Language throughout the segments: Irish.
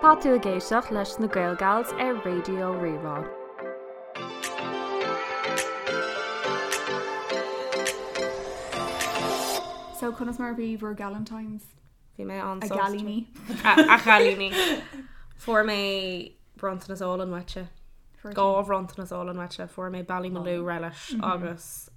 Tá tú ag éisteacht leis na Gaelgals ar Raidió Rí-Rá. So conas mar a bhí bhur Galentines? Bhí mé an-sásta. A gcailíní. A chailíní. Fuair mé bronntanas álainn uaitse. Dhá bhronntanas álainn uaitse. Fuair mé Ballymaloe relish agus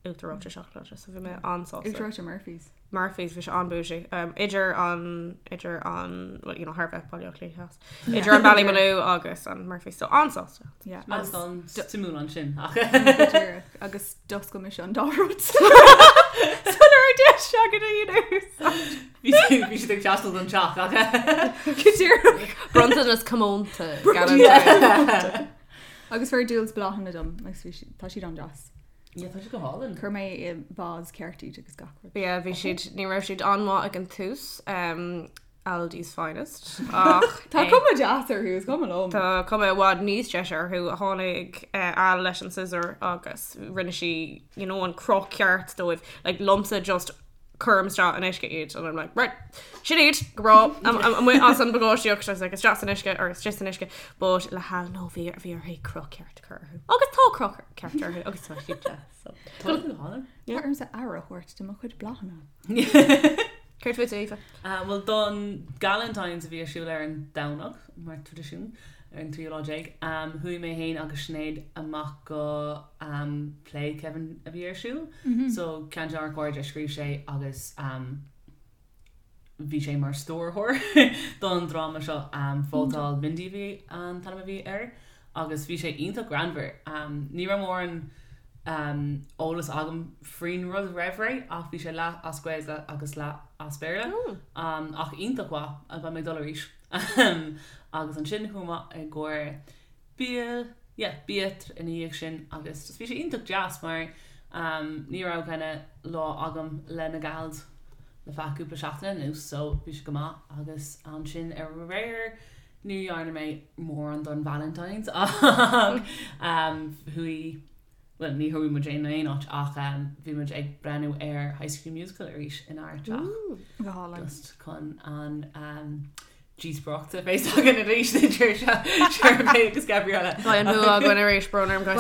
uachtar reoite seacláide so bhí mé an-sásta. Uachtar reoite Murphy's. Murphy's, bhí sé an-bougie. Idir an, idir an, well, you know, thar bheith Baile Átha Cliath Theas. Idir an Ballymaloe agus an Murphy's, so an-sásta. Yeah. Agus an suimiúil ansin ach. Go díreach. Agus d'oscail mise an dá rud. Sula raibh deis agat a dhéanamh. Bhí siad bhí siad ag teastáil don teach ach. Go díreach. Bronntanas comónta, Galentine. Agus fuair Jules bláthanna dom agus bhí siad, tá siad an-deas. Yeah, tá siad go hálainn. Chuir mé i vase ceart iad agus gach rud. Yeah, bhí siad, ní raibh siad an-mhaith ag an tús, um, Aldi's finest, ach Tá cuma deas orthu, is cuma liom. Tá cuma i bhfad níos deise orthu. Tháinig eh, Al leis an scissor agus rinne sí, you know, an cruth ceart dóibh. Like, liomsa just cuirim isteach in uisce iad and I'm like, right, sin iad, go breá, amuigh as an bpagáistíocht, I was like, isteach san uisce or isteach san uisce, but le hAl no, bhí bhí uirthi cruth ceart a chur orthu. Agus tá cruth ceart orthu agus tá siad deas. So. Tá go hálainn. Tá ormsa aire a thabhairt do mo chuid bláthanna. Céard fút Aoife? Bhuel don Galentine's a bhí ar siúl ar an Domhnach, mar traidisiún, ar an tríú lá déag, chuaigh mé féin agus Sinéad amach go play Kevin a bhí ar siúl. So ceann de ár gcairde a scríobh sé agus bhí sé mar stiúrthóir don dráma seo, Vótáil Mindy a bhí an t-ainm a bhí air agus bhí sé iontach greannmhar. Ní raibh mórán eolas agam faoin rud roimh ré ach bhí sé leath as Gaeilge agus leath as Béarla ach iontach mhaith, beidh mé ag dul arís. Agus ansin chuaigh mé i gcomhair bia, yeah, bia ina dhiaidh sin agus just bhí sé iontach deas mar ní raibh kinda lá agam le na gals le feadh cúpla seachtaine anuas so bhí sé go maith agus ansin aréir ní dhearna mé mórán don Valentine's ach chuaigh, bhuel ní chuaigh muid in aon áit ach bhí muid ag breathnú ar High School Musical arís inár dteach. Go hálainn. Just chun an díospóireacht a bheas againn arís idir Sharpay agus Gabriella. Beidh an bua againn arís, brón orm guys.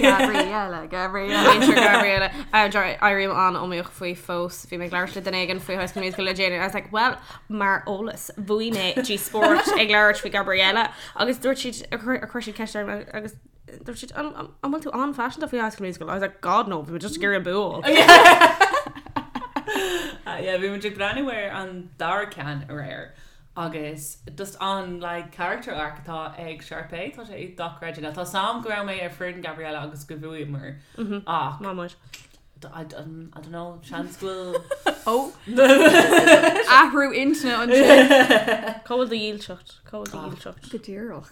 Gabriella, Gabriella. Muintir Gabriella. Éirím an-iomaíoch faoi fós. Bhí mé ag labhairt le duine éigin faoi High School Musical le déanaí. I was like, well, mar eolas, bhuaigh mé díospóireacht ag labhairt faoi Gabriella agus dúirt siad, chuir siad ceist orm agus dúirt siad, an bhfuil tú an-phaiseanta faoi High School Musical? I was like, God no, bhí mé just ag iarraidh an bua a fháil. Yeah, bhí muid ag breathnú ar an dara ceann aréir agus just an like character arc atá ag Sharpay, tá sé dochreidte. Now tá a fhios agam go raibh mé ar foireann Gabriella agus go bhuaíomar ach Má muid. I don't know, seans go bhfuil Ó! Athrú intinne ansin. Cá bhfuil do dhílseacht? Cá bhfuil do dhílseacht? Go díreach.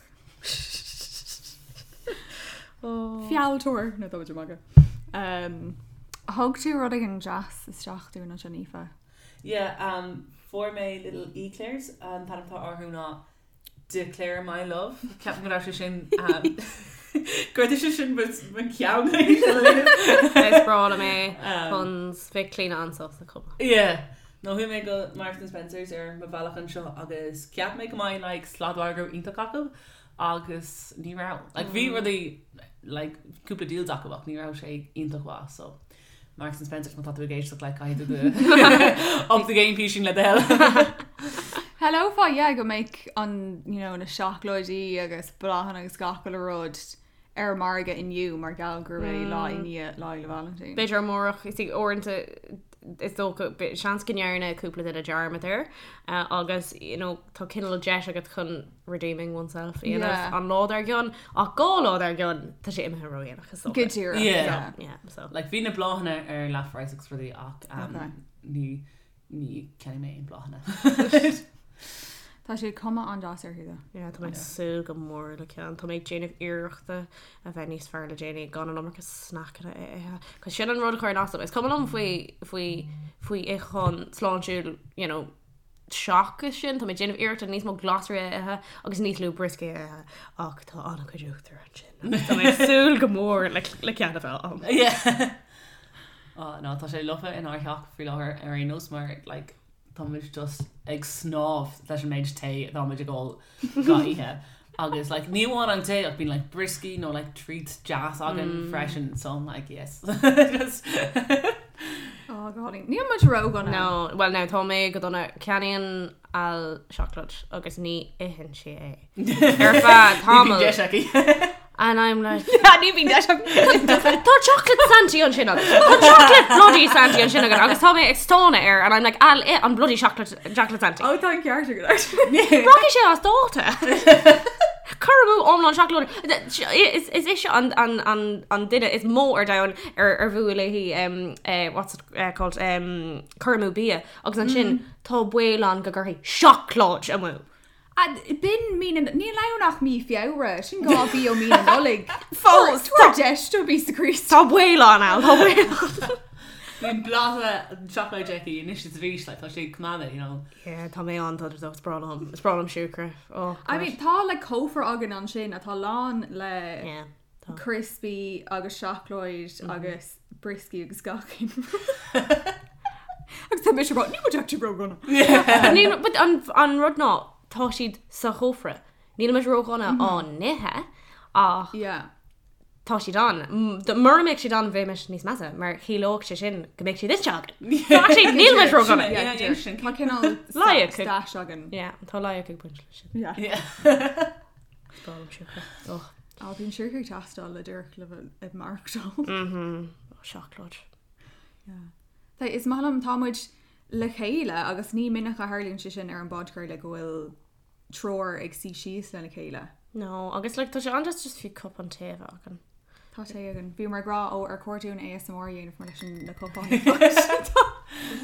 Fealltóir! No, tá muid ag magadh. Thug tú rud éigin deas isteach dúinn ansin, Aoife. Yeah, um, fuair mé little eclairs, an t-ainm atá orthu ná Declare my love. Ceapaim go raibh sé sin um, go raibh sé sin mo cheann Is breá liom é puns, bheadh Clíona an-sásta chomh maith. Yeah. No chuaigh mé go Marks and Spencer's ar mo bhealach anseo agus cheap mé go mbeidh like sladmhargadh iontach acu agus ní raibh. Like bhí rudaí like cúpla deals acu ach ní raibh sé iontach mhaith so Marks and Spencer's má tá tú ag éisteacht like caithfidh tú up the game písín le do thoil. Shamhlófá yeah go mbeadh an you know na seacláidí agus bláthanna agus gach uile rud ar an margadh inniu mar gheall gurb é lá i ndiaidh Lá Fhéile Vailintín. B'fhéidir amárach, is uaireanta is dócha, seans go ndearna cúpla duine dearmad air agus you know tá cineál deis agat chun redeeming oneself a dhéanamh Yeah. an lá dár gcionn ach 2 lá dár gcionn tá sé imithe ródhéanach is dócha. Go díreach, Yeah. yeah. Yeah, so. Like bhí na bláthanna ar leathphraghas agus rudaí ach um, Okay. ní Ní cheannaigh mé aon bláthanna. Tá sé cuma an-deas orthu though. Yeah, tá mé ag súil go mór le ceann. Tá mé ag déanamh iarrachta a bheith níos fearr le déanaí gan an iomarca sneaiceanna a ithe. Cos sin an rud a chuireann as dom. Is cuma liom faoi faoi faoi itheachán sláintiúil, you know, seachas sin, tá mé ag déanamh iarrachta níos mó glasraí a ithe agus níos lú brioscaí a ithe ach tá an-chuid uachtar ansin. Agus tá mé ag súil go mór le le ceann a bheith agam. Yeah. Oh no, tá sé lofa inár theach faoi láthair ar aon nós mar like. tá muid just ag snámh leis an méid tae atá muid ag ól gach oíche. Agus like ní amháin an tae ach bíonn like brioscaí nó like treats deas againn freisin so I'm like yes. Just Oh God, níl muid ródhona. No, well now tá mé go dona ceannaíonn Al seacláid agus ní itheann sí é. Ar feadh Ní bhíonn tamaill. deis aici. And I'm like, Ní bhíonn deis aici. Tá chocolate Santy ansin agat. Tá chocolate bloody Santy ansin agat agus tá mé ag stánadh air and I'm like, Al, ith an bloody chocolate, chocolate Santy. Ó tá an ceart agat actually. Rachaidh sé as dáta. Cur amú iomlán seacláide. Is is ise an an an an duine is mó ar domhan ar ar fuath léi um, eh, what's it eh, called um, cur amú bia agus ansin tá baol ann go gcuirfidh seacláid amú. B'in mí na, níl ann ach mí Feabhra, sin 2 mhí ó mí na Nollag. Fós, Tabhair deis do píosa Críost. Tá baol ann, Al, tá baol ann. Bíonn blátha seacláid aici anois is arís, like, tá sé ag coimeád é, you know. Yeah, tá mé an dona is breá liom, is breá liom siúcra. Oh, I mean, tá like cófra againn ansin atá lán le Yeah, tá. crispy agus seacláid agus brioscaí agus gach aon rud. Agus tá mise ag rá, níl muid actually ródhona. But níl, but an, an rud ná, tá siad sa chófra. Níl muid ródhona á n-ithe, ach Yeah. tá siad ann. Mura mbeadh siad ann bheimis níos measa, mar chiallódh sé sin go mbeadh siad ite againn. So actually níl muid ródhona. Yeah, Yeah, yeah, sin. Tá cineál Loighic. stash againn. Yeah, tá loighic ag baint leis sin. Yeah. Yeah. Is breá liom siúcra. Oh. Á, bíonn siúcra ag teastáil le díreach le bheith ag maireachtáil. Mhm. Oh, seacláid. Yeah. Tá, is maith liom, tá muid le chéile agus ní minic a tharlaíonn sé sin ar an bpodchraoladh go bhfuil triúr ag suí síos lena chéile. No, agus like, tá sé an-deas just fiú cupán tae a bheith againn. Tá sé againn. Bhíomar ag rá ó ar chóir dúinn ASMR a dhéanamh mar leis an na cupáin.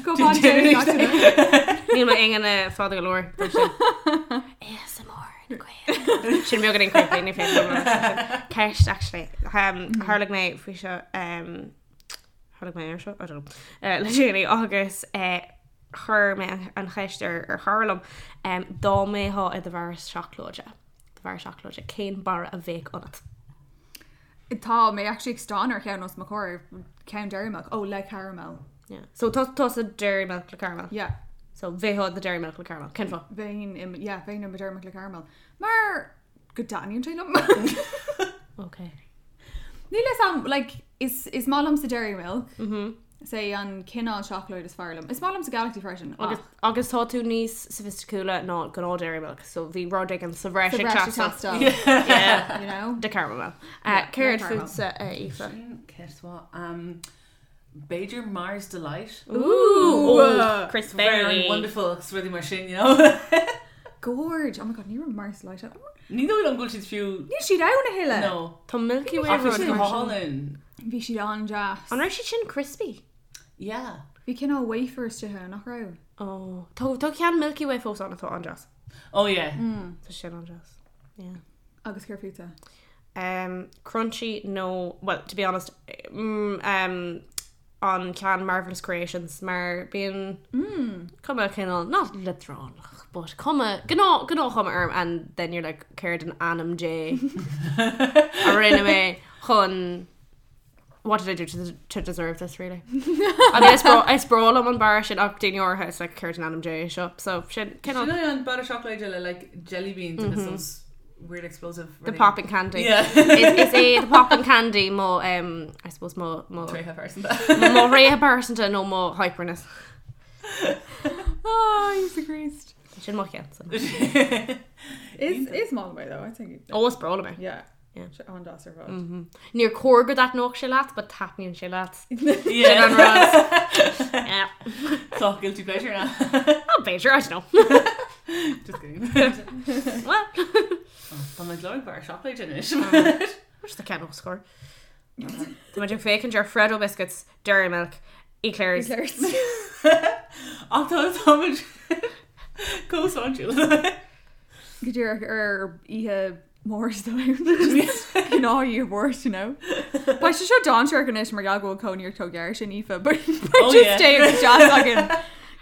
Cupán tae gach duine. Níl m'ingne fada go leor don sin. ASMR in Gaeilge. Sin beagáinín creepy, ní féidir liom a rá. Ceist, actually. Um, tharlaigh mé faoi seo, um, tharlaigh mé ar seo? I don't know. Uh, le déanaí agus uh, chuir mé an, an cheist ar, ar chara liom um, dá mbeifeá i do bharra seacláide, do bharra seacláide, cén barra a bheadh ionat? Tá mé actually ag stánadh ar cheann os mo chomhair, ceann Dairy Milk. Ó, le caramel. Yeah. So tá tá sa Dairy Milk le caramel. Yeah. So bheifeá i do Dairy Milk le caramel. Cén fáth? Bheinn i, yeah, bheinn i mo Dairy Milk le caramel. Mar go dtaitníonn sé liom. Okay. Níl a fhios a'm, like, is, is maith liomsa Dairy Milk. Mm -hmm. Is é an cineál seacláid is fearr liom. Is maith liomsa Galaxy freisin. Agus, agus tá tú níos soifisticiúla ná gnáth Dairy Milk, so bhí rud éigin sa bhreis ag teastáil. Yeah. You know? De caramel. Yeah, Céard le caramel. fútsa, Aoife? Sin ceist mhaith. Um, b'fhéidir Mars Delight. Ooh, oh, Chris Very Berry. wonderful agus rudaí mar sin, you know. Gorge. Oh my god, ní raibh Mars Delight ann. Ní dóigh liom go bhfuil siad fiú. Níl siad ann a thuilleadh. No. Tá Milky Way Ach bhí siad go rud mar sin. hálainn. Bhí siad an-deas. An raibh siad sin crispy? Yeah. Bhí cineál wafer istigh ann, nach raibh? Oh, tá tá ceann Milky Way fós ann atá an-deas. Oh yeah. Tá sin an-deas. Yeah. Agus céard fútsa? Um, crunchy nó, well, to be honest, mm, um, an ceann Marvellous Creations mar bíonn cuma cineál, not leadránach, but cuma, gnáth, gnáthchuma orm and then you're like, céard in ainm Dé a rinne mé chun what did I do to, to deserve this really? I mean, is breá is breá liom an barra sin ach daoine áirithe is like céard in ainm Dé seo so sin Sin cineál é an barra seacláide le like jelly beans agus those weird explosive the rudaí. popping candy. Yeah. Is, is é the popping candy mo um, I suppose mo mo Tréithe pearsanta. mo thréithe pearsanta nó mo hyperness. Oh, Íosa Críost. Sin mo cheann. Is is maith liom é though, I think. Ó is breá liom é. Yeah. Yeah. Sé an-deas ar fad. Níor chóir go dtaitneodh sé leat, but taitníonn sé leat. Yeah. Sin an rud. Yeah. Tá guilty pleasure now. Oh, b'fhéidir, I don't know. Just kidding. Well, Tá mé ag lorg barra seacláide anois. Where's the ceann os chóir? Tá muid ag féachaint ar Freddo biscuits, Dairy Milk, Eclairs. Eclairs. Ach tá táimid chomh sláintiúil. Go díreach ar oíche Mháirt gnáth oíche Mháirt, you know. Beidh sé seo dainséarach anois mar gheall go bhfuil cónaí ort chomh gar sin Aoife, but Oh, just yeah. tae agus deas againn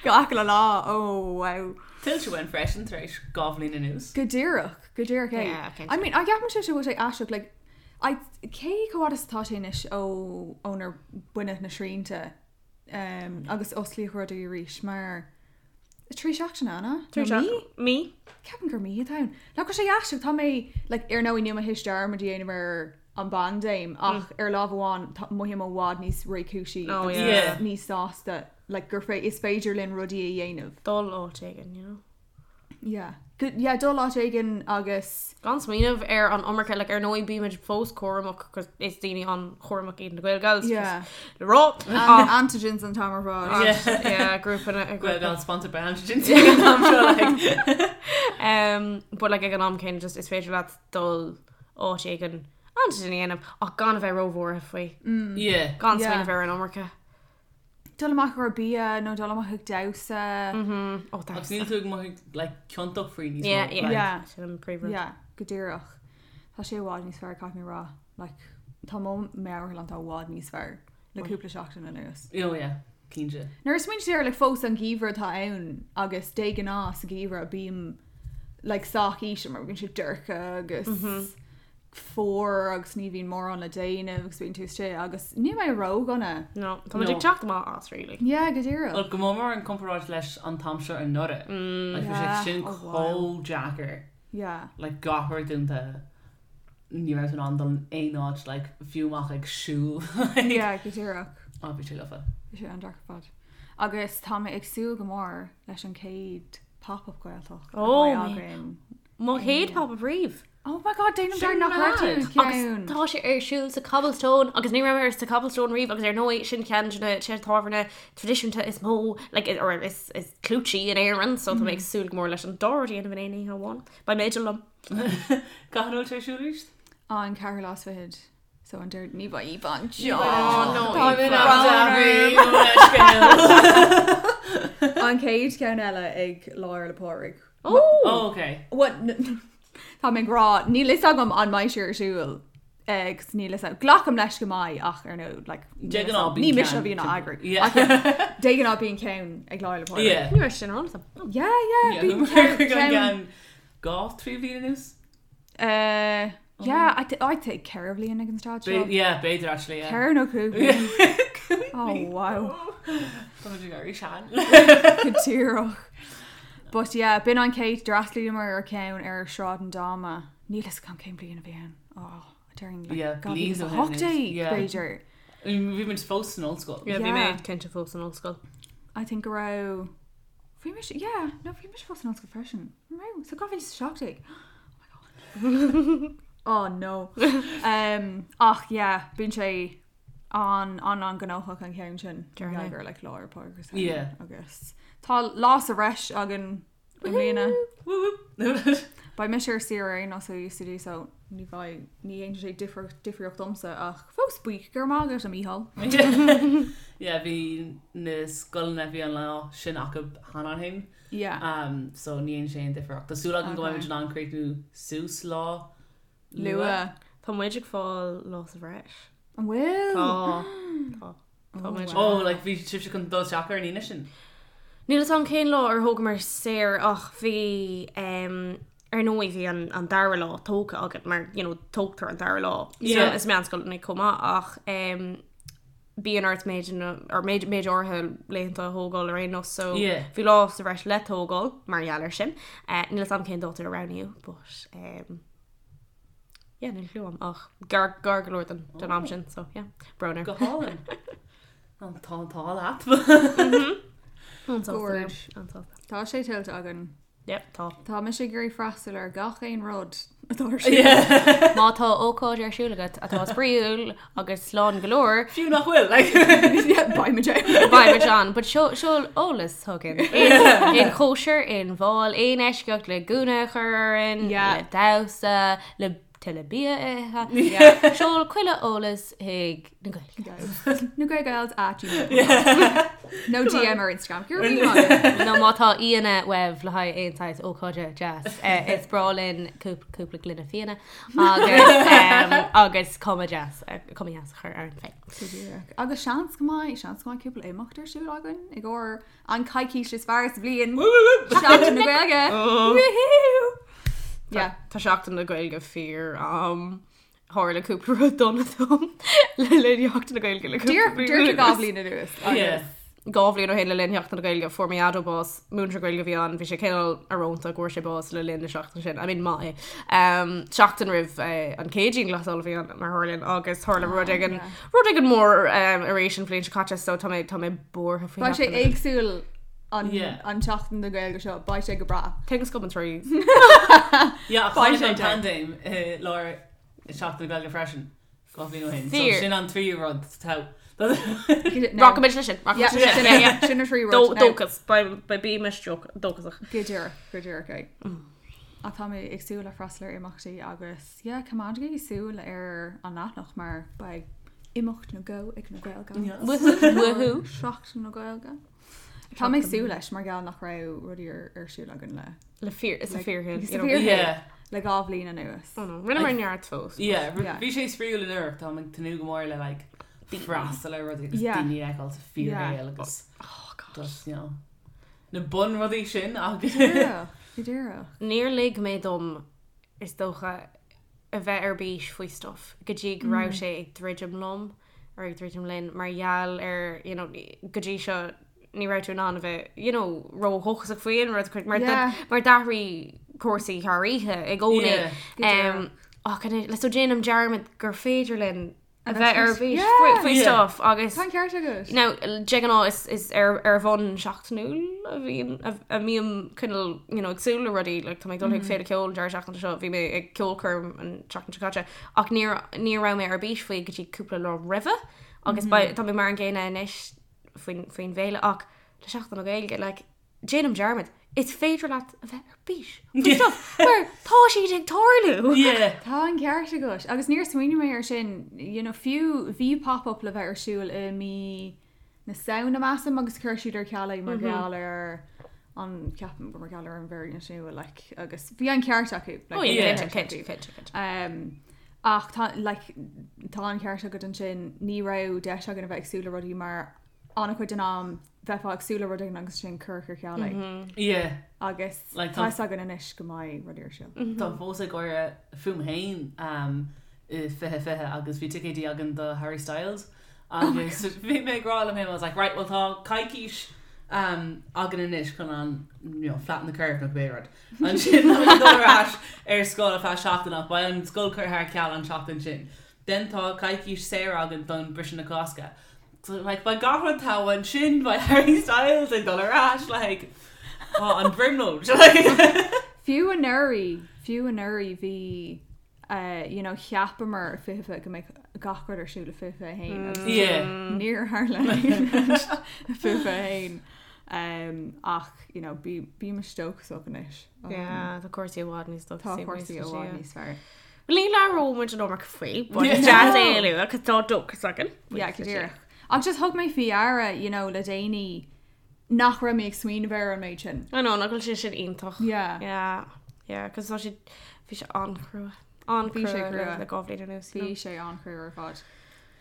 gach uile lá. Oh wow. Tuillte uainn freisin tar éis 2 bhliain anuas. Go díreach, go díreach é. Yeah, cinnte. I mean, I gceapann sé seo bhfuil sé aisteach, like, I, cé chomh fada is atá sé anois ó ónar baineadh na srianta um, agus osclaíodh rudaí arís mar 3 seachtaine, an ea? Nó mí? Mí. Ceapaim gur mí atá ann. Like, tá sé aisteach, tá mé, like, ar ndóigh níl mé théis dearmad a dhéanamh ar an bpaindéim ach ar lámh amháin tá mothaím i bhfad níos réchúisí Oh, agus yeah. Yeah. níos sásta like, gur fé is féidir linn rudaí a dhéanamh. Dul áit éigin, you know. Yeah. Good, yeah, dul áit éigin agus Gan smaoineamh ar an iomarca, like, ar ndóigh bímid fós cúramach cos is daoine an-chúramach iad na Gaelgals Yeah. le rá. An antigens an t-am ar fad. Yeah. Yeah, grúpa na grúpa. Gaelgals sponsored by Antigens ag an am seo, like. But like ag an am céanna just is féidir leat dul áit éigin antigen a dhéanamh ach gan a bheith róbhuartha faoi. Yeah. Gan Yeah. smaoineamh ar an iomarca. Dul amach ar bia nó dul amach ag damhsa. Oh, Agus that's níl tú ag mothú like ciontach faoi níos Yeah, mó, yeah. like. Yeah. Sin an príomhrud. Yeah, go díreach. Tá sé i bhfad níos fearr caithfidh mé rá. Like, tá mo meabhairshláinte i bhfad níos fearr le cúpla seachtain anuas. Oh yeah, cinnte. Nuair a smaoinítear air, like, fós an geimhreadh atá ann agus de ghnáth sa gheimhreadh bím like, sách íseal mar bíonn sé dorcha agus fuar agus ní bhíonn mórán le déanamh agus bíonn tú istigh agus níl mé ródhona. No, tá muid No. ag teacht amach as really. Yeah, go díreach. Well, go mór mór in comparáid leis an t-am seo anuraidh. Like, bhí sé Yeah. sin Oh, wow. chomh deacair. Yeah. Like, gach rud dúnta. Ní raibh tú in ann dul in aon áit, like, fiú amach ag siúl. Like, Yeah, go díreach. Oh, bhí sé lofa. Bhí sé an-deacair ar fad. Agus tá mé ag súil go mór leis an chéad pop-up Gaeltacht a Oh, bheidh mé. againn. Mo chéad pop-up riamh. Oh my god, déanaim Sin dearmad nach raibh tú mad. i Agus gceann. tá sé ar siúl sa Cobblestone agus ní raibh mé sa Cobblestone riamh agus ar ndóigh sin ceann de na tithe tábhairne traidisiúnta is mó like, or is, is clúití in Éirinn, so tá mé ag súil go mór leis an dá rud a dhéanamh in aon oíche amháin. Beidh mé liom. Cathain a bhfuil sé ar siúl arís? An ceathrú lá is fichead. So an Déardaoin ní bheidh Aoife anseo. Oh, no, Tá Aoife. An An chéad cheann eile ag Lá Fhéile Pádraig. Oh! Oh, okay. What? Tá mé ag rá, níl fhios agam an mbeidh sé ar siúl agus níl fhios agam. Glacaim leis go mbeidh ach ar ndóigh, like, De ghnáth ní bíonn mise a ceann bhíonn á timpeall. eagrú. Yeah. Ach yeah, de ghnáth bíonn ceann ag Lá Fhéile Pádraig. Yeah. Ní raibh sin ar eolas agam. Yeah, yeah, Yeah, bíonn ceann ceann. ceann dhá trí bhliain anuas? Yeah, I think ceithre bhliain ag an staid seo. Yeah, b'fhéidir actually, yeah. Ceithre nó cúig bliain. Oh, wow. Tá muid ag éirí sean. Go díreach. But yeah, b'in an chéad d'fhreastlaíomar ar ceann ar Sráid an Dáma. Níl fhios agam cén bliain a bhí ann. Oh, déarfainn like Yeah, bliain ó shin 2018, anois. Yeah. b'fhéidir. Bhí muid fós san ollscoil. Yeah, bhí mé Yeah. cinnte fós san ollscoil. I think go raibh bhí mise yeah, no bhí mise fós san ollscoil freisin. An raibh? So 2017. Oh my god. Oh no. Ach yeah, bíonn sé an an an gnóthach an ceann sin. Déarfainn. Gur like Lá Fhéile Pádraig agus Yeah. agus tá lá sa bhreis againn i mbliana. Woo woo. Beidh mise ar saoire ar aon nós ó UCD so ní bheidh ní dhéanfaidh sé difear difríocht domsa ach fós buíoch go raibh maith agat a Mícheál. Yeah, bhí na scoileanna bhí an lá sin acu cheana féin. Yeah. So ní dhéanann sé aon difríocht. Tá súil agam go Okay. mbeidh muid in ann críochnú suas lá Luath. Tá muid ag fáil lá sa bhreis. An bhfuil? Tá. Tá. Tá muid. Oh, like bhí sibhse chun dul isteach ar an Aoine sin. Níl fhios agam cén lá ar thógamar saor ach bhí um, ar ndóigh bhí an, an dara lá tógtha againn mar you know, tógtar an dara lá Yeah. is meánscoileanna chomh maith ach um, bíonn ort méid or méid méid áirithe laethanta a thógáil ar aon nós so Yeah. bhí lá sa bhreis le tógáil mar gheall air sin. Uh, níl fhios agam cén dáta a roghnaíodh but um, yeah, níl clue agam ach gar gar go leor den, den am sin so yeah, brón air. Go hálainn. An tá an t-ádh leat. An-sásta Gorge. liom, an-sásta. Tá sé tuillte againn. Yep, tá. Tá mise ag iarraidh freastal ar gach aon rud atá ar siúl. Yeah. Má tá ócáid ar siúl agat atá spraíúil agus slán go leor, Fiú nach bhfuil, like. Yeah, beidh muid ann. Beidh muid ann, but seol eolas chugainn. Aon chóisir, aon bhál, aon eisceacht le gúna a chur orainn, Yeah. le damhsa, le tuilleadh bia a ithe. Seol chuile eolas chuig na Gaeil. Na Gaelgals at gmail. No DM ar Instagram. Go raibh míle maith agat. Nó má tá aíonna uaibh le haghaidh aon saghas ócáide deas. Is breá linn cúpla gloine fíona agus agus cuma deas, cuma dheas a chur orainn féin. Go díreach. Agus seans go mbeidh, seans go mbeidh cúpla imeacht ar siúl againn i gcomhair an coicís is fearr sa bhliain. Seachtain na Gaeilge. Woohoo! Yeah. Tá Seachtain na Gaeilge fíor am. Tharla cúpla rud dona dom le linn Sheachtain na Gaeilge le cúpla Díreach bliain díreach anuas. 2 bhliain anuas. Yeah. 2 bhliain ó shin le linn Sheachtain na Gaeilge fuair mo dhaideo bás, múinteoir Gaeilge a bhí ann, bhí sé cineál íorónta go bhfuair sé bás le linn na seachtaine sin, I mean maith é. Um, seachtain roimh eh, an chéad dianghlasáil a bhí ann mar tharlaíonn agus tharla rud éigin rud éigin mór um, arís an bhliain seo caite so tá mé tá mé buartha faoi Beidh sé Sheachtain na Gaeilge. éagsúil an, Yeah. an tseachtain na Gaeilge seo, beidh sé go breá. Things come in threes. Yeah, Beidh tháinig sé an dead. paindéim i lár Seachtain na Gaeilge freisin. 2 bhliain ó shin. So Fíor. sin an tríú rud tá. Rachaimid leis sin. Yeah, Rachaimid leis sin. Yeah, yeah. Sin an tríú rud. Dóchas. Beidh bímis dóchasach. Go díreach, go díreach é. Ach tá mé ag súil le freastal ar imeachtaí agus yeah, coimeádaigí súil ar an leathanach mar beidh imeacht nó dhó ag na Gaeilge. Woohoo, woohoo. Seachtain na Gaeilge. Tá mé ag súil leis mar gheall nach raibh rudaí ar ar siúl againn le Le fíor, is a Like, fíor is a fíor- Yeah. le 2 bhliain anuas. Rinneamar neart fós. Yeah, Yeah. bhí sé spraíúil anuraidh, tá ag tnúth go mór le like freastal ar rudaí agus Yeah. daoine a fheiceáil sa fíorshaol agus Oh God. just, you know, na bunrudaí sin agus Go díreach, go díreach. Níor lig mé dom is dócha a bheith ar bís faoi stuff go dtí go raibh sé ag druidim liom or ag druidim linn mar gheall ar you know, go dtí seo ní raibh tú in ann a bheith you know, ródhóchasach faoi aon rud mar Yeah. mar d'athraigh cúrsaí thar oíche i gcónaí. Yeah. Go díreach. Ach le so déanaim dearmad gur féidir linn a A bheith bheith ar faoi- bís Yeah. faoi faoi Yeah. stuff agus Tá an ceart agat. Now, de ghnáth is, is ar, ar bhonn seachtainiúil a bhíonn a, a mbím cineál you know, ag súil le rudaí like, tá mé ag dul chuig féile ceoil an deireadh seachtaine seo bhí mé ag ceolchoirm an tseachtain seo caite ach níor ní raibh mé ar bís faoi go dtí cúpla lá roimhe agus mm tá mé mar an gcéanna anois faoin faoin bhféile ach le Seachtain na Gaeilge like, déanaim dearmad is féidir leat a bheith ar bís faoi stuff mar tá siad ag tarlú. Yeah. Tá an ceart agat agus níor smaoinigh mé ar sin you know, fiú bhí pop-up le bheith ar siúl i mí na Samhna measaim agus chuir siad ar ceal é mar gheall ar an ceapaim gur mar gheall ar an variant nua like, agus bhí an ceart acu. Like, Oh, bhí yeah, an cinnte, ceart cinnte, acu. cinnte, cinnte. Um, ach tá, like, tá an ceart agat ansin ní raibh deis againn a bheith ag súil le rudaí mar an-chuid den am bheifeá ag súil le rud éigin agus sin curtha ar ceal é. Yeah. Agus Like, tá tá- fhios againn anois go mbeidh rudaí ar siúl. Tá fós ag gáire fúm féin um, i 2020 agus bhí ticéidí againn do Harry Styles agus bhí mé ag rá liom féin, I was like, right, well tá coicís um, againn anois chun an you know, flatten the curve nó cibé rud. Ansin tá mé ag dul ar ais ar scoil ar feadh seachtain ach beidh an scoil curtha ar ceal an seachtain sin. Then tá coicís saor againn don briseadh na Cásca. So, like, beidh gach rud togha ansin beidh Harry Styles ag dul ar ais like, oh, an bhrionglóid. Like, Fiú anuraidh, fiú anuraidh bhí uh, you know, cheapamar 2020 go mbeadh gach rud ar siúl i 2021 agus Yeah. níor tharla aon rud i 2021. Um, ach you know, bí bímis dóchasach anois. Um, Yeah, tá cúrsaí i bhfad níos Tá dóchasaí cúrsaí i bhfad níos fearr. Ní labhróidh muid an iomarca faoi, but is deas é a lua, cos tá dóchas againn. Yeah, go díreach. Ach just thug mé faoi deara, you know, le déanaí nach raibh mé ag smaoineamh ar an méid sin. I know, nach bhfuil sé sin iontach. Yeah. Yeah, yeah, cos tá sé, bhí sé an-chrua. An-chrua Bhí sé crua. le 2 bhliain anuas. you Bhí know. sé an-chrua ar fad.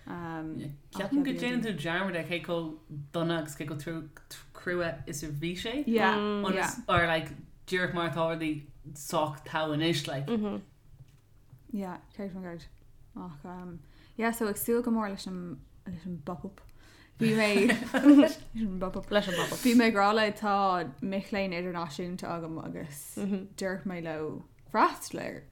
Um, Ceapaim go déanann tú dearmad ar cé chomh dona agus cé chomh crua is a bhí sé. Yeah. Ionas- Yeah. Or like díreach mar atá rudaí sách togha anois like. Yeah, 100%. Ach, um, yeah, so ag súil go mór leis an leis an bpop-up. Bhí mé leis an bpop-up. Leis an bpop-up. Bhí mé ag rá le tá mic léinn idirnáisiúnta agam agus deir mé leo freastal air.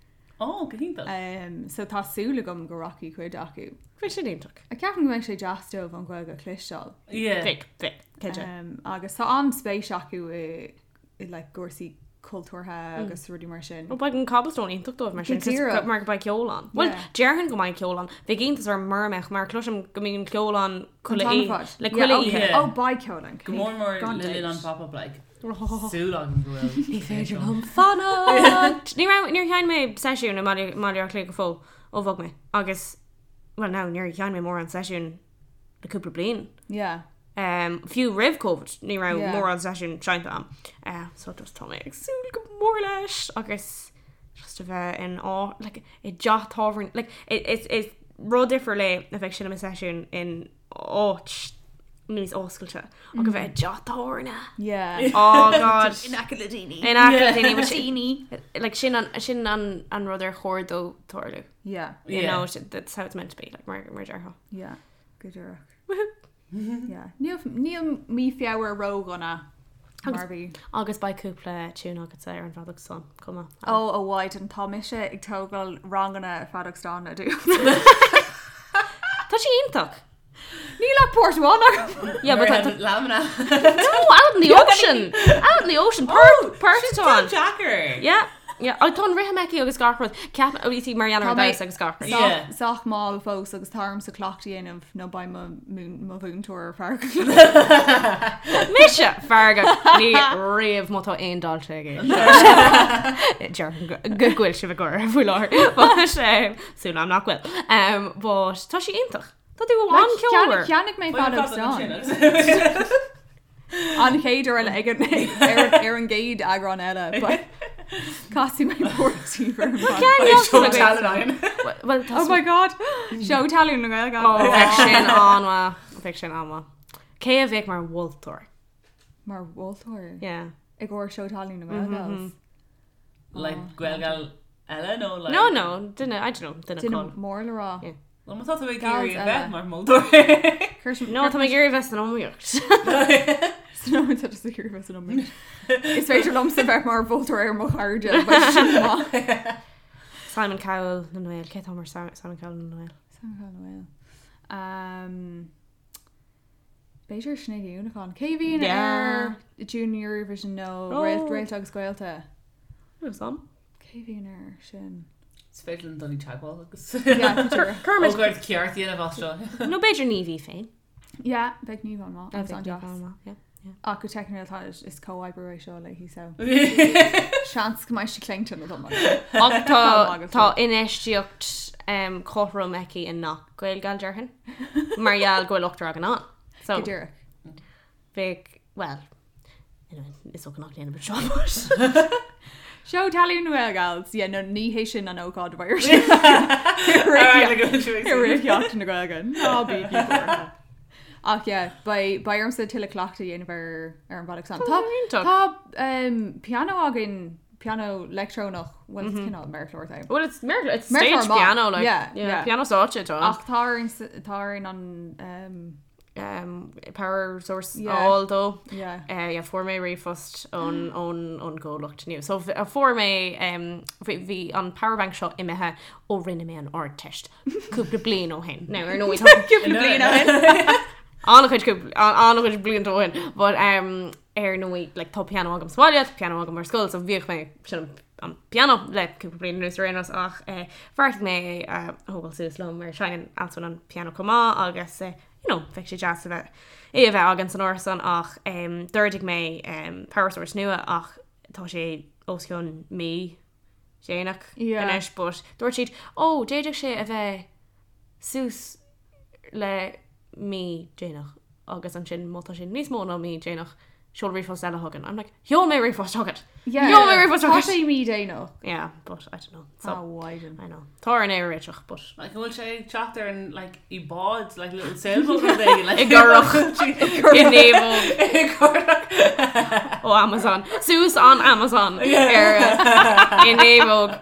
Ó, go hiontach. Um, so tá súil agam go rachaidh cuid acu. Bhí sin iontach. A ceapaim go mbeidh sé deas dóibh an Ghaeilge a chloisteáil. Yeah. Bheadh, bheadh, cinnte. Um, agus tá an-spéis acu i, i like, cúrsaí cultúrtha agus rudaí mar sin. Ó beidh an Cobblestone iontach dóibh mar sin, Go díreach. mar go mbeidh ceol ann. Bhuel, Yeah. déarfainn go mbeidh ceol ann. Bheadh iontas orm mura mbeadh mar cloisim go mbíonn ceol ann An chuile t-am oíche. ar fad. Le Yeah, chuile okay. oíche. Yeah. Ó, beidh ceol ann. Go mór mór Gan le linn an dabht. pop-up like. Súil agam go bhfuil. Ní féidir liom fanacht! Ní raibh, níor sheinn mé seisiún i mBaile Átha Cliath go fóill ó bhog mé. Agus, well no, níor sheinn mé mórán seisiún le cúpla bliain. Yeah. Um, fiú roimh Covid, ní raibh Yeah. mórán seisiún seinnte agam. Uh, so just tá mé ag súil go mór leis agus just a bheith in á, like, i dteach tábhairne, like, is, is rud difriúil é a bheith ag seinm i seisiún in áit níos oscailte ach a bheith i dteach tábhairne. Yeah. Oh God. In aice le daoine. In aice le daoine, which- like sin an sin an an rud ar chóir dó tarlú. Yeah. You Yeah. know, that's how it's meant to be, like mar mar déarfá. Yeah. Go díreach. Yeah. Níl níl mí Feabhra ródhona mar bhí. Agus beidh cúpla tune agatsa ar an bhfeadóg stáin chomh maith. Ó a Mhaighdean, tá mise ag tógáil ranganna feadóg stáin le do. Tá sé iontach. Níl ach páirt amháin agam. Yeah, but tá Lamna. No, out in the ocean. Out in the ocean. Páirt páirt atá ann. Deacair. Yeah. Yeah, tá an rithim aici agus gach rud. Ceap ó sí mar gheall ar Tá an mé- damhsa agus gach rud. Yeah. Sách mall fós agus tá ormsa cleachtadh a dhéanamh nó beidh mo mo mhúinteoir feargach. Mise feargach ní riamh má tá aon dalta ag Déarfainn go go bhfuil sibh ag gáire faoi láthair. But súil agam nach bhfuil. Um, but tá sí iontach. Tá tú an-cheolmhar. Cheannaigh mé feadóg stáin. An chéad uair eile ag an ar an gcéad eagrán eile but casfaidh mé páirt ar an bhfeadóg. Well, tá Oh my god! Seó talún na Gaeilge. Oh, bheadh sin an-mhaith. Bheadh sin an-mhaith. Cé a bheadh mar mholtóir? Mar mholtóir? Yeah. I gcomhair seó talún na Gaeilge. Like Gaelgal eile nó like No, no, duine, I don't know, duine Duine cáil. mór le rá. Yeah. Well, má tá tú ag Gals iarraidh a eile. bheith mar mholtóir. No, tá mé ag iarraidh bheith san iomaíocht. No, tá tú ag iarraidh bheith san iomaíocht. Is féidir liomsa bheith mar mholtóir ar mo chairde, but sin maith. Simon Cowell na nGael, cé atá mar Simon Cowell na nGael? Simon Cowell na nGael. Um, B'fhéidir Sinéad Ní Uallacháin. Cé a bhíonn Yeah. ar Junior Eurovision nó Oh. Réalt Réalta agus Gaolta? Níl 'fhios a'm. Cé a bhíonn ar sin? Is féidir linn dul i dteagmháil agus Yeah, tá Cuirfimid Ócáid ceart a dhéanamh as seo. Nó b'fhéidir Niamh í féin. Yeah, bheadh Niamh an-mhaith. Agus Bheadh an-deas. Niamh an-mhaith, yeah. Ach go teicniúil tá is comhoibriú é seo léi so. Seans go mbeidh sí claonta nó dom. Ach tá Tá tá infheistíocht um, cothrom aici i ngach Gaelgal déarfainn. Mar gheall go bhfuil ochtar againn ann. So Go díreach. bheadh well anyway, is dócha nach ndéanfaimid seo but Seó talún na Gaelgals, yeah, no ní hé sin an ócáid a bheidh ar siúl. Rith Sheachtain na Gaeilge. Ná bígí buartha. Ach yeah, beidh beidh ormsa tuilleadh cleachtaidh a dhéanamh ar ar an bhfeadóg stáin. Tá Iontach. tá um, pianó againn, pianó leictreonach, well it's cineál méarchlár é. Well it's méarchlár, it's Méarchlár stage maith. piano like Yeah, yeah, yeah. piano stáitse atá ann. Ach tá orainn s- tá orainn an um, um, power source Yeah. a fháil dó. yeah. Uh, yeah, fuair mé ríomhphost ón ón ón gcomhlacht nua. So uh, fuair mé um, bhí bhí an powerbank seo imithe ó rinne mé an Ardteist cúpla bliain ó shin. Now ar ndóigh tá Cúpla bliain ó shin. an-chuid cúpla- an-chuid blianta ó shin. But um, ar ndóigh like, tá pianó agam sa bhaile, tá pianó agam ar scoil, so bhíodh mé sin an pianó le cúpla bliain anuas ar aon nós ach eh, bheartaigh mé é a thógáil suas liom mar seinneann Alswyn an pianó chomh maith agus eh, you know, bheadh sé deas a bheith é a bheith againn san árasán ach um, d'ordaigh mé um, power source nua ach tá sé os cionn mí déanach Yeah. anois but dúirt siad ó d'fhéadfadh sé a bheith suas le mí déanach agus ansin má tá sé níos mó ná mí déanach seol ríomhphost eile chugainn. I'm like, sheol mé ríomhphost chugat. Yeah. Sheol mé ríomhphost Tá chugat. sé mí déanach. Yeah, but I don't know. So, Ah, Mhaighdean. I know. Tá orainn é a réiteach, but Like, an bhfuil sé ag teacht ar an like, i bád, like little sailboat rud éigin, like, I gcurach. I naomhóg I gcurach. ó Amazon. Suas an Amazon ar uh, i naomhóg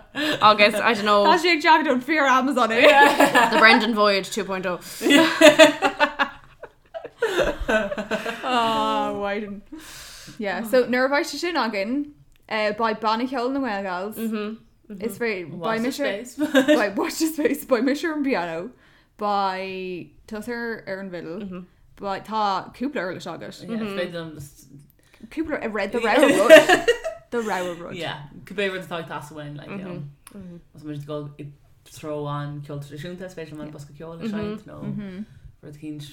agus I don't know Tá sé ag teacht ón fíor Amazon é. the Brendan Voyage 2.0. Ah, Mhaighdean. Yeah, so nuair a bheidh sé sin againn, eh, beidh banna ceoil na nGaelgals. Is féidir Watch beidh the mise space. beidh watch the space, beidh mise ar an bpianó, beidh tusa ar an bhfidil, beidh tá cúpla uirlis agat. Yeah, is féidir liom just- Cúpla a read the rogha rud. The rogha rud. Yeah, cibé rud atá ag teastáil uainn, like, you know. Más muid ag dul i dtreo an ceol traidisiúnta, is féidir liom an bosca ceoil a seinnt, nó rud eicínt,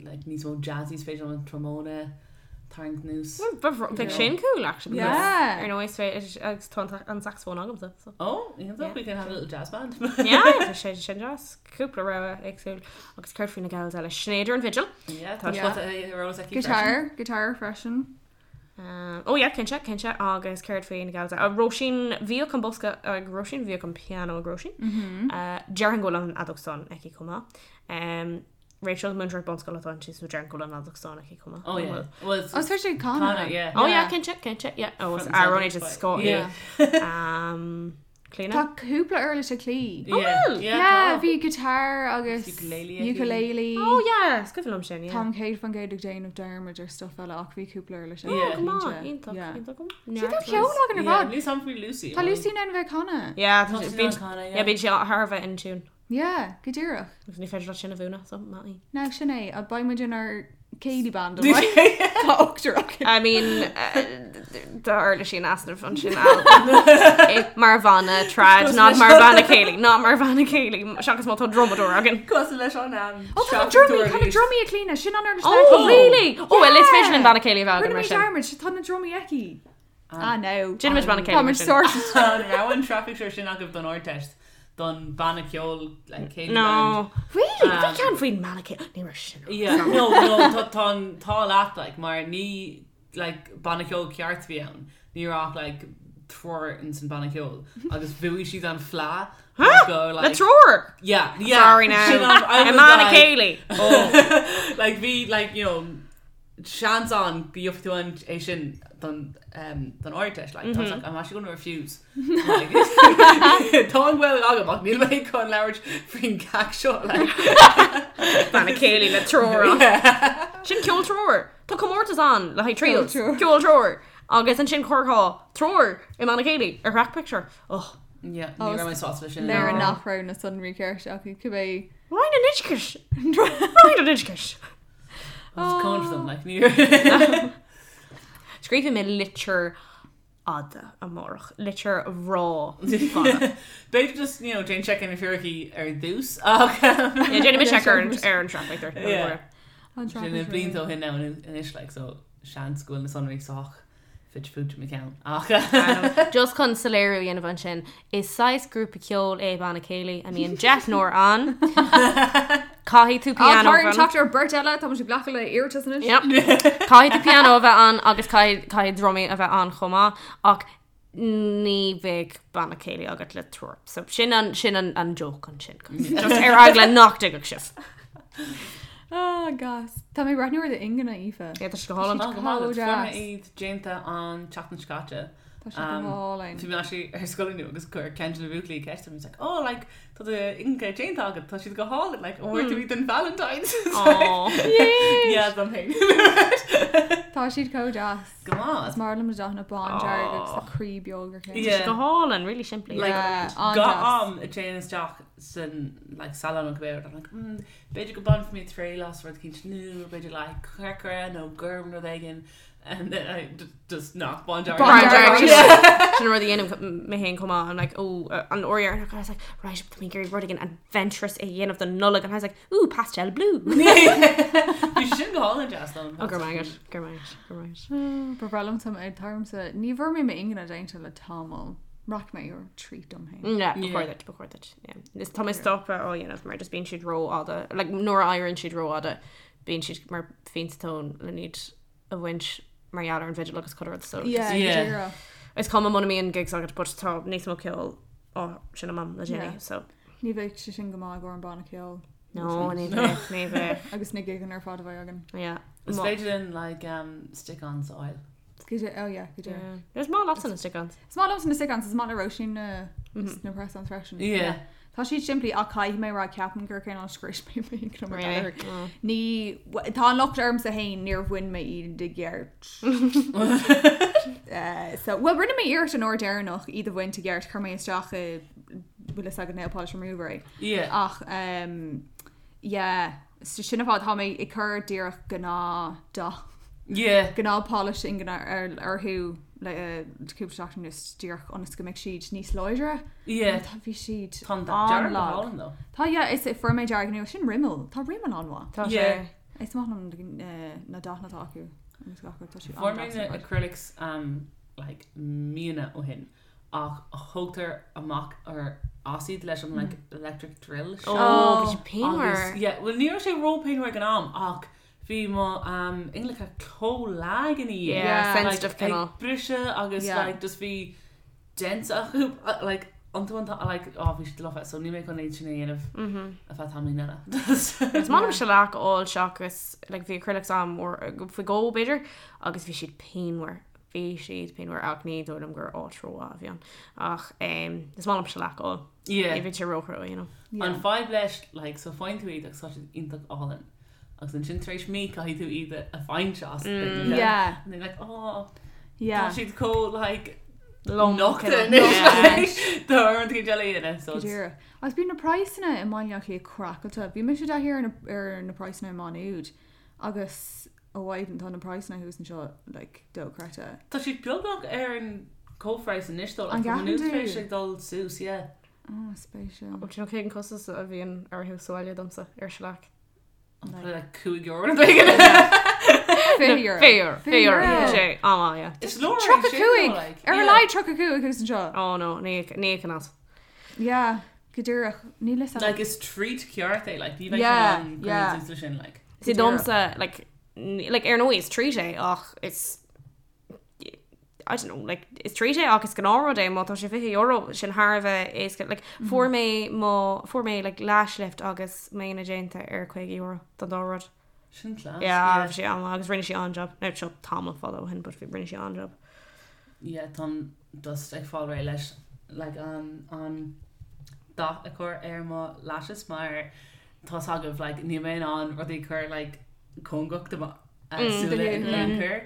like, níos mó jazzy, is féidir liom an trombone a tharraingt anuas. Bheadh sin cool actually. because Yeah. Ar ndóigh is féidir agus tá an- an saxophone agamsa. So. Oh, you know, Yeah. we can have a little jazz band. Yeah, tá sé sin deas. Cúpla rogha éagsúil agus céard faoi na gals eile Sinéad ar an bhfidil. Yeah, tá Yeah. spota ar eolas aici freisin. Guitar, guitar freisin. Um, oh yeah, cinnte, cinnte agus céard faoi na gals eile. Uh, Róisín bhíodh an bosca ag Róisín, bhíodh an pianó ag Róisín. Uh, Déarfainn go bhfuil an fheadóg stáin aici chomh maith. Um, Rachel múinteoir bunscoile atá inti, so déarfainn go bhfuil an fheadóg stáin aici chomh maith. Oh yeah. Well, it's, Oh, is féidir Connor, Connor. yeah. Oh yeah, cinnte, cinnte, yeah. Oh, Front and Aaron centre, just but- Scott. Yeah. Um, Clíona? Tá cúpla uirlis ag Clí. Yeah, bhfuil? yeah, Yeah, tá. bhí guitar agus Ukulele aici. ukulele. Oh yeah, is cuimhin liom sin, yeah. Táim 100% ag déanamh dearmad ar stuff eile ach bhí cúpla uirlis aici. Yeah. Oh, come on, cinnte. iontach, Yeah. iontach. See, tá ceol againn ar Yeah, fad. níl 's agam faoi Lucy. Tá Lucy in ann bheith ag canadh. Yeah, Tá sí bíonn in ann canadh, yeah. yeah, bíonn sí thar a bheith in tune. Yeah, go díreach. Agus ní féidir leat sin a mhúineadh, so maith í. Now sin é, a beidh muid inár céilí band an mbeidh? Tá ochtar againn. I mean, tá uirlisí in easnamh ansin Al. Mar bhanna trad, not mar bhanna céilí, not mar bhanna céilí, seachas má tá drumadóir againn. Cosúil leis an am. Ó, tá na drumaí, tá na drumaí ag Clíona, sin an uirlis Oh, aici. really? Oh, well, is féidir linn Yeah. banna céilí a bheith againn Rinne mar mé sin. dearmad, tá na drumaí aici. Ah, no. Déanfaimid banna céilí Tá mar muid sin. sorted. An raibh an traffic sure sin agaibh don Ardteist don banna ceoil like, céilí band? No. Really? Bhí Um, ceann faoin mbanna céilí. Ní raibh sin. Yeah, no, no, tá tá an tá leat like mar ní like banna ceoil ceart a bhí ann. Ní raibh ach like triúr in san banna ceoil agus bhuaigh siad an fleadh Huh? go Le like triúr! yeah, yeah. Sorry now. Sin an- I I was mbanna like- céilí. Oh. like bhí like you know seans ann go gheobhaidh tú an é sin don um, don Ardteist like, I was like I'm actually going to refuse like, Tá an Ghaeilge agam ach níl mé chun labhairt faoin gceacht seo like Banna céilí le triúr. Sin ceol triúr. Tá comórtas ann le haghaidh trios. Ceol triúr. Ceol triúr. Agus ansin chuirfeá triúr i mbanna céilí ar thrack picture. Oh. Yeah, Oh, ní raibh mé sásta leis sin. Léir No. nach raibh na sonraí ceart acu cibé. Roinn an Oideachais. Roinn an Oideachais. I was coming for them like ní Scríobfaidh mé litir fhada amárach. Litir bhreá fada. B'fhéidir just you know déan check ar na fíricí ar dtús ach Yeah, déanfaidh mé Yeah, check ar an sure. ar an traffic there. Yeah. An Sin na blianta ó shin now anois like so seans go bhfuil na sonraí sách fite fuaite i mo cheann ach Just chun soiléiriú a dhéanamh ansin, is saghas grúpa ceoil é banna céilí a mbíonn deichniúr ann. Caithfidh tú pianó Tá a bheith ann. teacht ar beirt eile, tá muid ag glacadh le iarratais anois. Yep. Caithfidh tú pianó a bheith ann agus caithfidh caithfidh drumaí a bheith ann chomh maith ach ní bheidh banna céilí agat le triúr. So sin an sin an an joke ansin. Just ar eagla nach dtuigfeadh sibh. Ah, gas. Tá mé ag breathnú ar d'ingne, Aoife. Yeah, tá sé go hálainn. Tá go maith agat. Fuair mé deas. iad déanta an tseachtain seo caite. Tá sé go hálainn. Bhí mé actually ar scoil inniu agus chuir ceann de na buachaillí ceist orm, he's like, oh, like, tá d'ingne déanta agat, tá siad go hálainn, like, an bhfuair tú iad don Valentine's? Aw. Yeah, dom féin. Tá siad chomh deas. Go maith. Is maith liom na dathanna bán dearg agus tá croí beag ar ceann. Yeah. Go hálainn, really simplí. Like, Yeah, Gach an-deas. am a dtéim isteach san like salon nó cibé rud, I'm like, mm, b'fhéidir go mbainfidh mé triail as rud eicínt nua, b'fhéidir like corcra nó gorm nó rud éigin, and then I just nach bán dearg. Bán dearg. Sin an rud a dhéanaim mé féin chomh maith. I'm like, oh, an uair dheireanach, I was like, right, tá mé ag iarraidh rud éigin adventurous a dhéanamh don Nollaig, and I was like, ooh, pastel blue. Bhí sé sin go hálainn deas dom. Oh, go raibh maith agat, go raibh maith agat, go raibh maith agat. Ba bhreá liom tarmsa, ní bhfuair mé m'ingne déanta le tamall. Rachaidh mé ar treat dom féin. Yeah, ba Yeah. chóir duit, ba chóir duit. Yeah. Is tá mé stoptha á dhéanamh mar just bíonn siad rófhada, like, nuair a éiríonn siad rófhada, bíonn siad mar phionsa tóin le iad a bhaint mar gheall ar an bhfidil agus chuile rud, so just- Yeah, Yeah. go díreach. Is cuma muna mbíonn gigs agat, but tá níos mó ceoil á seinm agam le déanaí, Yeah. so. Ní bheidh sé sin go maith i gcomhair an banna ceoil. No, ní bheidh, ní bheidh. Agus na gigeanna ar fad a bheidh againn. Yeah. Is Má- féidir linn like um, stick-ons a fháil. Go dé- oh yeah, go díreach. Yeah. Is maith leatsa na stick-ons. Is maith liomsa na stick-ons, is maith le Róisín na na press-ons freisin. Yeah. Tá siad simplí ach caithfidh mé rá ceapaim gur cineál scrios mé m'ingne mar Really? gheall air. Mm. Ní tá an locht ormsa féin níor bhain mé iad i gceart. Eh, so well rinne mé iarracht an uair deireanach iad a bhaint i gceart chuir mé isteach i bhfuil fhios agat nail polish remover é. Yeah. Ach um, yeah, so sin an fáth tá mé ag cur díreach gnáth dath Yeah. gnáth polish ingne ar orthu le eh, cúpla seachtain anuas díreach ionas go mbeidh siad níos láidre. Yeah. Tá bhí siad Tá an dath dearg go an-lag. hálainn though. Tá yeah, is fuair mé dearg nua sin Rimmel. Tá Rimmel an-mhaith. Tá Yeah. sé. Is maith liom eh, na dathanna atá acu. Agus gach rud, tá siad Fuair mé an-deas na ar fad. acrylics um, like, míonna ó shin ach thógtar amach ar as iad leis an like, electric drill seo. Oh, bhí sé Agus, pianmhar. yeah, well ní raibh sé ró-pianmhar ag an am ach bhí mo um, ingleacha chomh lag ina dhiaidh. Yeah, Yeah. sensitive like, cineál. ag briseadh agus Yeah. like, just bhí dents acu uh, like, iontu an like, oh, bhí siad lofa, so níl mé chun iad sin a dhéanamh Mhm. ar feadh tamaillín eile. Is maith liom shellac a fháil seachas like, bhí acrylics agam uair faoi dhó b'fhéidir agus bhí siad pianmhar. Bhí siad pianmhar ach ní dóigh liom gur áit rómhaith a bhí ann. Ach is maith liom shellac a fháil. Yeah. Ní bhíonn sé róchrua, you know. Yeah. An fadhb leis, like, so faigheann tú iad agus tá siad iontach álainn. Agus ansin tar éis mí caithfidh tú iad a bhaint as. Mm. Yeah. And they're like, oh, Yeah. tá siad chomh, like, Lom, nochta cineál. anois, Yeah. like, tá orm tú eile a dhéanamh, so Go it's- díreach. Agus bíonn na praghsanna i mBaile Átha Cliath craiceáilte. Bhí mise i dtaithí ar na, ar na praghsanna i Má Nuad agus ó mhaidin tá na praghsanna thuas anseo like dochreidte. Tá siad beagnach ar an comhphraghas anois though, An like, tá gceapann Maynooth tú? tar éis ag dul suas, yeah. Oh, spéisiúil. Do you know cén costas a bhíonn orthu sa bhaile domsa ar shellac? Like- Like €5 nó éigin. €20. €20. €20. €20. Sé, á, yeah. Is leor é 35! sin, though, like, Ar a yeah. laghad 35 thuas anseo. Oh no, ní íocann as. Yeah, go díreach. Níl fhios agam. Like is treat ceart é, like ní bheidh Yeah, sé an yeah. yeah. sin like. See Go díreach. domsa like like ar ndóigh is treat é ach is I don't know, like is treat é ach is gnáthrud é má tá sé €20 sin thar a bheith éasca like fuair mé mo fuair mé like lash lift agus m'ingne déanta ar €50 don dá rud. Sin class. Yeah, bhí sé an-mhaith agus rinne sí an-job. Now seo tamall fada ó shin but bhí rinne sí an-job. Yeah, táim just ag fáil réidh leis like an an dath a chur ar mo lashes mar tá's agaibh like níl mé in ann rudaí a chur like cóngarach do mo súile in aon chor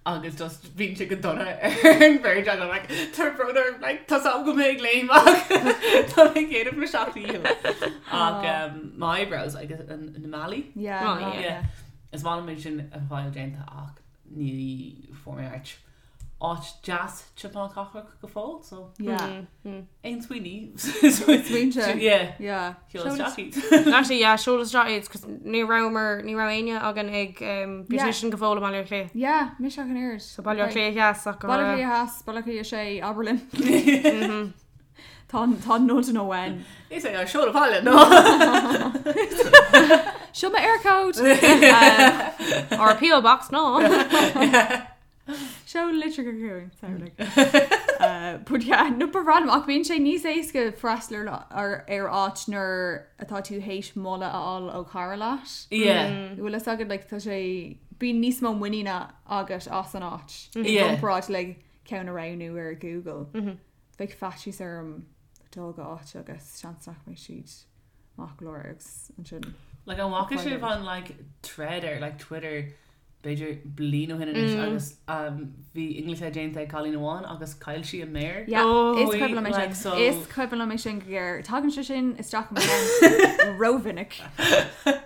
agus just bíonn sé go dona ar an bheirt agam like tá brón orm like tá's agam go mbeidh léim ach tá mé ag déanamh mo sheacht ndícheall ach um, my eyebrows like an na malaí Yeah, Oh, no, yeah. yeah. Is maith liom é sin a fháil déanta ach ní fuair mé áit áit deas timpeall na cathrach go fóill so Yeah. aon smaoiní Smaointe. Yeah. Yeah. Sheol isteach iad. Actually yeah, seol isteach iad 'cause ní rabhamar ní raibh éinne againn ag um, beautician go fóill i mBaile Átha Cliath. Yeah, mise ach an oiread. So Baile Átha Cliath Theas ach go Baile Átha raibh- Cliath Theas, Baile Átha Cliath 6, abair linn. Tá tá nod nó when. Is é seol abhaile no. Seo mo Eircode! Or PO box no. Seol litir chugainn, sorry, like. Uh, but yeah, no ba random ach bíonn sé níos éasca freastal ar, ar, ar áit nuair atá tú théis moladh a fháil ó chara leat. Yeah. Bhfuil fhios agat like, tá sé bíonn níos mó muiníne agat as an áit. I Yeah. gcomparáid le ceann a roghnú ar Google. Bheadh faitíos orm dul go áit agus seans nach mbeidh siad maith go leor agus ansin. Like an bhfaca sibh an like thread ar like Twitter b'fhéidir bliain ó shin anois agus um, bhí inghlite déanta ag cailín amháin agus chaill sí a méar. Yeah, Oh, is cuimhin liom é like, sin. so- Is cuimhin liom é sin go géar. Tagann sé sin isteach i mo cheann rómhinic.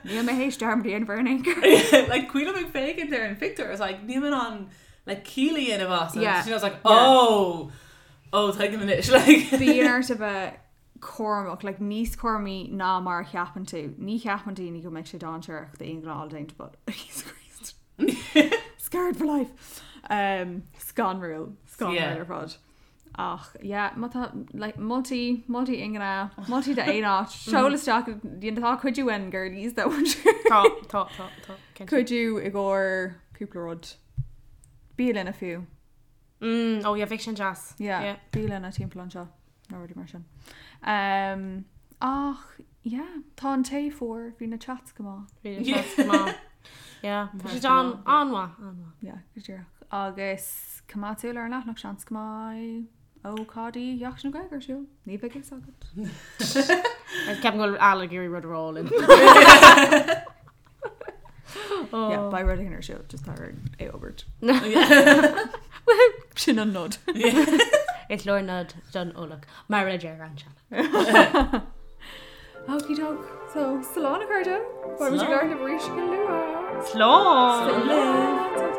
Níl mé théis dearmad a dhéanamh air in aon chor. like cuimhin liom ag féachaint ar an phictiúr I was like níl mé in ann like ciall a dhéanamh as and Yeah. she was like Yeah. oh oh tuigim anois like Bíonn ort a bheith cúramach, like níos cúramaí ná mar a cheapann tú. Ní cheapann daoine go mbeidh sé dainséarach d'ingne déanta, but Jesus Christ. Scarred for life. Um, scanrúil. Scanrúil Yeah. ar fad. Ach, yeah, má tá, like, moltaí, moltaí ingne, moltaí d'aon áit, seol isteach, you know, tá cuidiú uainn girlies that one sure. Tá tá tá tá. cinnte. Cuidiú i gcomhair cúpla rud. Bialanna fiú. Mm, oh yeah, bheadh sin deas. Yeah, Yeah. bialanna timpeall anseo nó rudaí mar sin. Um, ach, yeah, tá an tae fuar, bhí na chats go maith. Bhí na chats go maith. Yeah, bhí siad an an-mhaith, an-mhaith. Yeah, go díreach. Agus coimeád súil ar an leathanach seans go mbeidh ócáidí Sheachtain na Gaeilge ar siúl. Ní bheidh fhios agat. Ceapaim go bhfuil Al ag iarraidh rud a rá linn. Oh. Yeah, beidh rud éigin ar siúl, just tar é fhógairt. Sin an nod. Is leor nod don eolach, mar a deir an sean. Okie doke. So, slán a chairde. Beidh muid ag Slán. labhairt libh arís go luath. Slán! Slán.